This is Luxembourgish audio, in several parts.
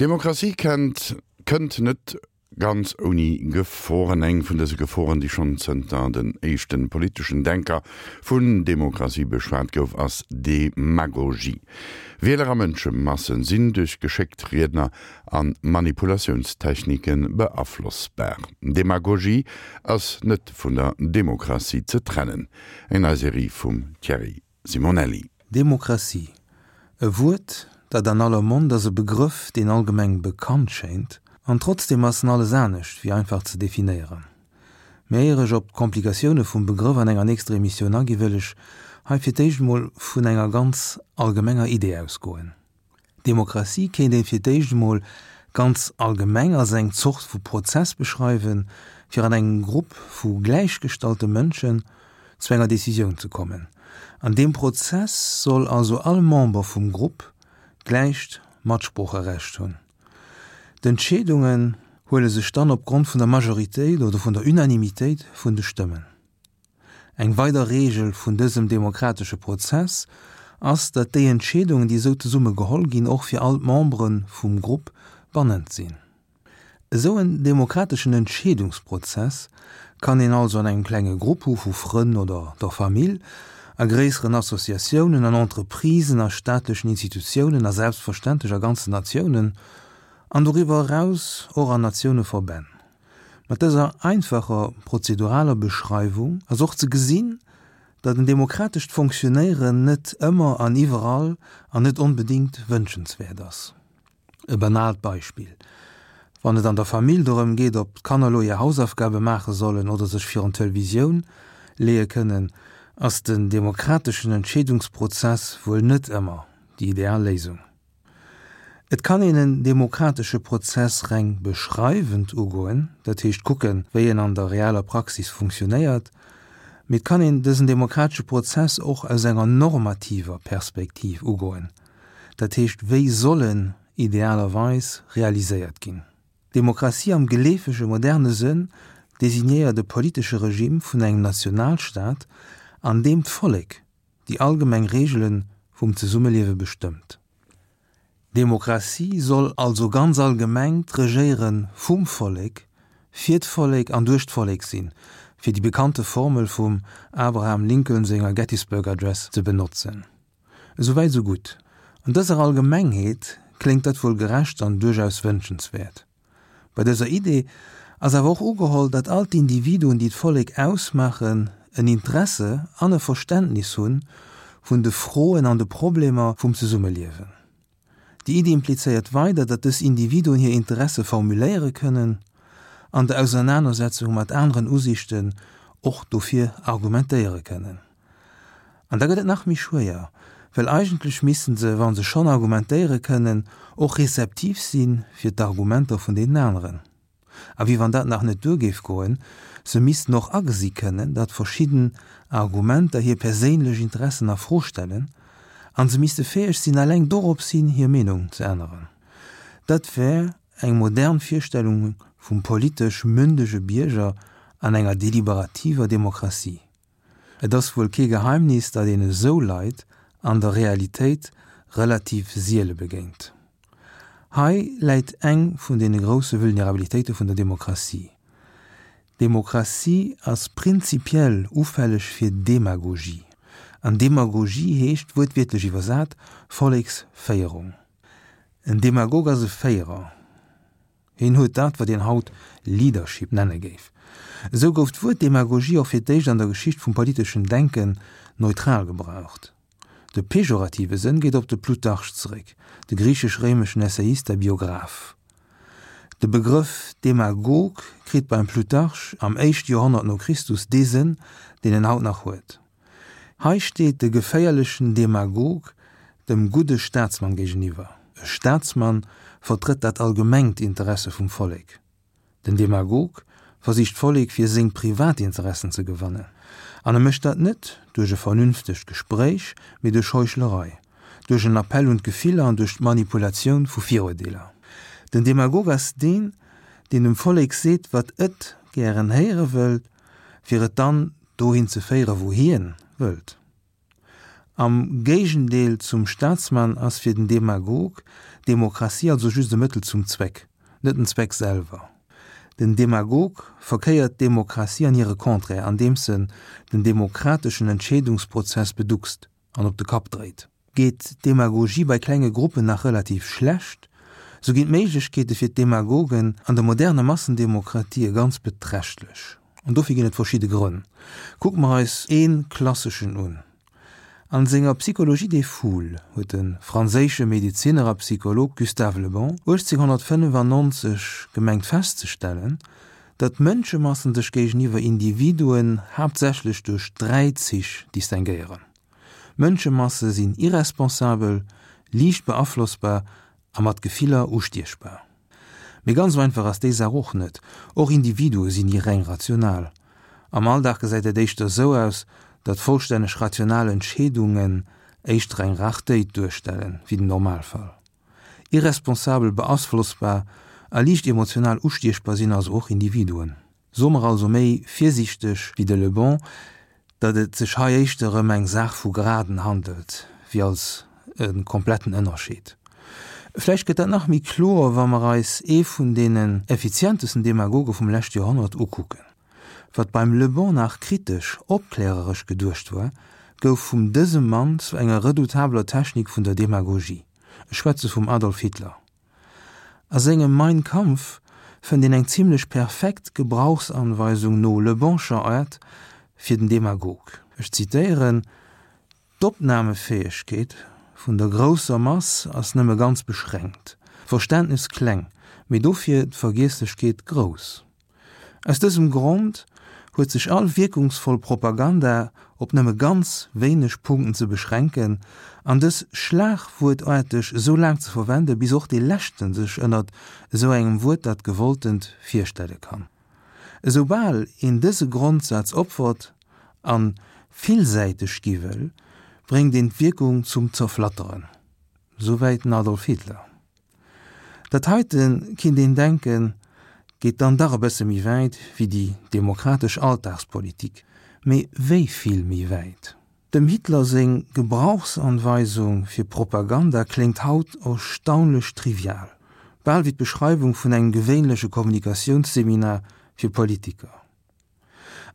Demokratie kennt, kënnt net ganz ouni Geforen. Eng vun dëse Geforen, déi schonn zënter den éischte politeschen Denker vun Demokratie beschwat gouf, ass Demagogie. Wieler a Mënschemassen sinn duerch geschéckt Riedner a Manipulatiounstechnike beaflossbar. Demagogie ass net vun der Demokratie ze trennen. Eng nei Serie vum Thierry Simonelli. Demokratie, e Wuert, dat an aller Mond ass, e Begrëff, deen allgemeng bekannt schéint, an trotzdeem ass en alles anescht wéi einfach ze definéieren. Mä éier ech op d'Komplikatioune vum Begrëff an enger nächster Emissioun agi wëll ech hei fir d'éischt emol vun enger ganz allgemenger Idee ausgoen. Demokratie kéint een fir d'éischt emol ganz allgemeng als eng Zort vu Prozess beschreiwen, fir an engem Grupp vu gläichgestallte Mënschen zu enger Decisioun ze kommen. An deem Prozess soll also all Member vum Grupp gläicht Matsproocherecht hunn. D'Entscheedungen huele sech dann opgrond vun der Majoritéit oder vun der Unanimitéit vun de Stëmmen. Eng weider Reegel vun dësem demokratesche Prozess ass, datt déi Entscheedungen, déi esou zesumme geholl ginn, och fir all d'Membere vum Grupp bannend sinn. Esou en demokrateschen Entscheedungsprozess kann een also an engem klenge Grupp hu vu Frënn oder der Famill, a gréisseren Associatiounen, an Entreprisen, a staatlechen Institutiounen a selbstverständlech a ganzen Natiounen an doriwwer eraus och an Natiouneverbänn. Mat dëser einfacher prozeduraler Beschreiwung ass och ze gesinn, datt en demokratescht Fonctionnéieren net ëmmer an iwwerall an net onbedéngt wënschenswäert ass. E banaalt Beispill, Wann et an der Famill dorëm geet, ob d'Kanner elo hir Hausaufgabe maache sollen oder sech virun d'Televisioun leeë kënnen, ass den demokrateschen Entscheedungsprozess wuel net ëmmer déi ideal Léisung. Et kann een en demokratesche Prozess reng beschreiwend ugoen, dat heescht kucken, wéi en an der realer Praxis funktionéiert, mee et kann een dësen demokratesche Prozess och aus enger normativer Perspektiv ugoen, dat heescht wéi soll en idealerweis realiséiert ginn. Demokratie am geleefege moderne Sënn designéiert e politesche Regime vun engem Nationalstaat, an deem d'Vollek déi allgemeng Reegele vum Zesummeliewe bestëmmt. Demokratie soll also ganz allgemeng d'Regéiere vum Vollek, fir d'Vollek an duerch d'Vollek sinn, fir déi bekannte Formel vum Abraham Lincoln senger Gettysburg Address ze benotzen. Esouwäit esou gutt. An dëser Allgemengheet kléngt dat wuel gerecht an duerchaus wënschenswäert. Bei dëser Idee ass awer och ugeholl, datt all d'Individuen, déi d'Vollek ausmaachen, en Interesse an e Verständnis hu vun de Froen an de Problemer vum Zesummeliewen. Déi Iddi implizéiert weider, datt dës Individuen hir Interesse formuléiere kënnen an der Ausernanersetzung mat aneren Usiichten och dofir argumentéiere kënnen. An da gëtt et nach méi schwéier, well eigentlech missten se, wa se schonn argumentéiere kënnen, och rezeptiv si fir d'Argumenter vun deenen aneren. A wéi wann dat nach net duer géif goen, se missten och agesi kënnen, datt verschidden Argumenter hir perséinlech Interessen a Fro stellen, an se misste fäeg sinn, eleng dorops hin hir Meenung ze änneren. Dat wär eng modern Virstellung vum politesch mündege Bierger an enger deliberativer Demokratie. Et ass wuel kee Geheimnis, datt een esou Leit an der Realitéit relativ siele begéint. Hei läit eng vun deene grousse Vulnerabilitéite vun der Demokratie. Demokratie ass prinzipiell ufälleg fir Demagogie. An Demagogie heescht, wuertwiertlech iwwersat, Volleksféierung. En Demagog ass e Féierer. Hien huet dat, wat een haut Leadership nenne géif. Esou gouf d'Wuert Demagogie och fir d'éischt an der Geschicht vum politeschen Denken neutral gebraucht. De pejorative Sënn geet op de Plutarch zeréck, de griichesch-réimeschen Essayist a Biograph. De Begrëff Demagog kritt beim Plutarch am éischte Joerhonnert no Christus dee Sënn, deen en haut nach huet. Hei steet de geféierlechen Demagog dem gudde Staatsmann géigeniwwer. E Staatsmann vertrëtt dat allgemengt Interesse vum Vollek. Den Demagog versicht d'Vollek fir seng privat Interessen ze gewannen. An e mécht dat net duerch e vernünftegt Gespréich, mee duerch Heuchlerei, duerch en Appell un d'Gefiller an duerch d'Manipulatioun vu Viruerdeeler. Den Demagog ass deen, deen dem Vollek seet, wat et gären héiere wëllt, fir et dann dohin ze féieren, wou hien wëllt. Am Géigendeel zum Staatsmann ass fir den Demagog d'Demokratie also just e Mëttel zum Zweck, net den Zweck selwer. Den Demagog verkéiert d'Demokratie an hire Contraire, andeems en den demokrateschen Entscheedungsprozess beduckst an op de Kapp dréit. Geet d'Demagogie bei klenge Gruppen nach relativ schlecht, sou ginn d'Méiglechkeete fir d'Demagogen an der moderner Massendemokratie ganz beträchtlech. An dofir ginn et verschidde Grënn. Kucke mer eis ee klasseschen un. An senger Psychologie des foules huet de franséische Medezinner a Psycholog Gustave Le Bon 1895 gemengt festzestellen, datt Mënschemassen sech géigeniwwer Individuen haaptsächlech duerch 3 Zich distinguéieren, Mënschemasse sinn irresponsabel, liicht beaflossbar a mat Gefiller ustiechbar. Mee ganz esou einfach ass déi Saach och net. Och Individue sinn ni reng rational. Am Alldag gesäit dat éischter esou aus, datt vollstänneg rational Entscheedungen éischter eng Rartéit duerstellen, wéi den Normalfall. Irresponsabel, beaflossbar a liicht emotional ustiechbar sinn also och Individuen. Soe mer also méi virsiichteg wéi de Le Bon, datt et sech hei éischter ëm eng Saach vu Graden handelt, wéi als e kompletten Ënnerscheed. Vläicht gëtt dat nach méi kloer, wa mer eis ee vun deenen effizientesten Demagoge vum leschte Joerhonnert ukucken. Wat beim Le Bon nach kritesch, opkläreresch geduecht war, gouf vum dësem Mann zu enger redoutabler Technik vun der Demagogie. Ech schwätze vum Adolf Hitler. A sengem Mein Kampf fënnt een eng zimlech perfekt Gebrauchsanweisung no Le Bonscher Aart fir den Demagog. Ech zitéieren, D'Opnamefäegkeet vun der grousser Mass ass nëmme ganz beschränkt, d'Verständnes kleng, mee dofir d'Vergiesslechkeet grouss. Aus dësem Grond huet sech all wierkungsvoll Propaganda op nëmme ganz wéineg Punkten ze beschränken an dës schlagwuertaarteg esou laang ze verwenden, bis och dee Leschten sech ënnert esou engem Wuert dat Gewolltent virstelle kann. Esoubal een dëse Grondsaz opfert an villsäiteg gi wëll, bréngt een d'Wierkung zum Zerflatteren. Souwäit den Adolf Hitler. Dat heiten, kinnt een denken, geet dann dach e bësse méi wäit wéi déi demokratesch Alltagspolitik. Mee wéi vill méi wäit? Dem Hitler seng Gebrauchsanweisung fir Propaganda kléngt haut erstaunlech trivial, bal wéi d'Beschreiwung vun engem gewéinleche Kommunikatiounsseminar fir Politiker.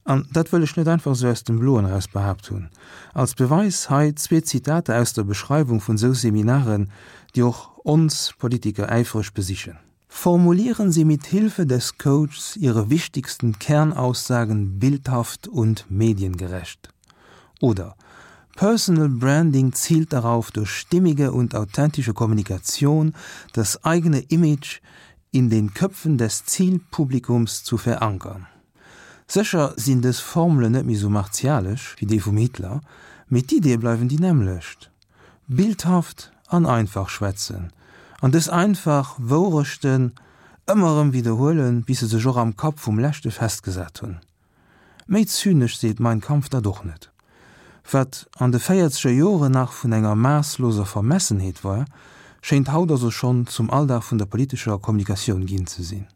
An dat wëll ech net einfach esou aus dem Bloen eraus behaapt hunn. Als Beweis hei zwee Zitater aus der Beschreiwung vun esou Seminaren, déi och ons Politiker äifreg besichen. Formulieren Sie mit Hilfe des Coachs Ihre wichtigsten Kernaussagen bildhaft und mediengerecht. Oder Personal Branding zielt darauf, durch stimmige und authentische Kommunikation das eigene Image in den Köpfen des Zielpublikums zu verankern. Sécher sinn dës Formelen net méi sou martialesch wéi déi vum Hitler, mee d'Iddie bleiwen déi nämmlecht, bildhaft an einfach schwätzen an dës einfach Wourechten ëmmer erëm widderhuelen, bis se sech och am Kapp vum Leschte festgesat hunn. Méi zynesch seet Mein Kampf dat och net. Wat an de véierzeger Joren nach vun enger maassloser Vermessenheet war, schéint haut also schonn zum Alldag vun der politescher Kommunikatioun ginn ze sinn.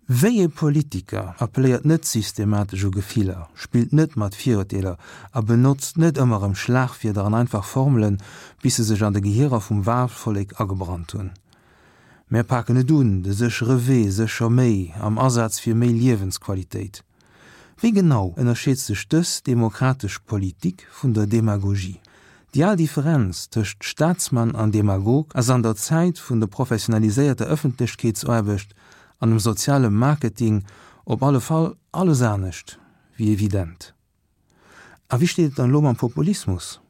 Wéi ee Politiker appelléiert net systematesch u Gefiller, spillt net mat Virurteeler a benotzt net ëmmer erëm Schlagwierder an einfach Formelen, bis se sech an de Gehierer vum Wahlvollek agebrannt hunn? Mär paken et un, de séchere Wee, sécher méi, am Asaz fir méi Liewensqualitéit. Wéi genau ënnerscheet sech dës demokratesch Politik vun der Demagogie? Déi al Differenz tëscht Staatsmann an Demagog ass an der Zäit vun der professionaliséierter Ëffentlechkeetsaarbecht an dem soziale Marketing op alle Fall alles anescht wéi evident. A wéi steet et dann elo mam Populismus?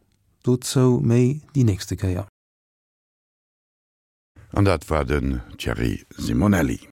Dozou méi déi nächste Kéier. An dat war den Thierry Simonelli.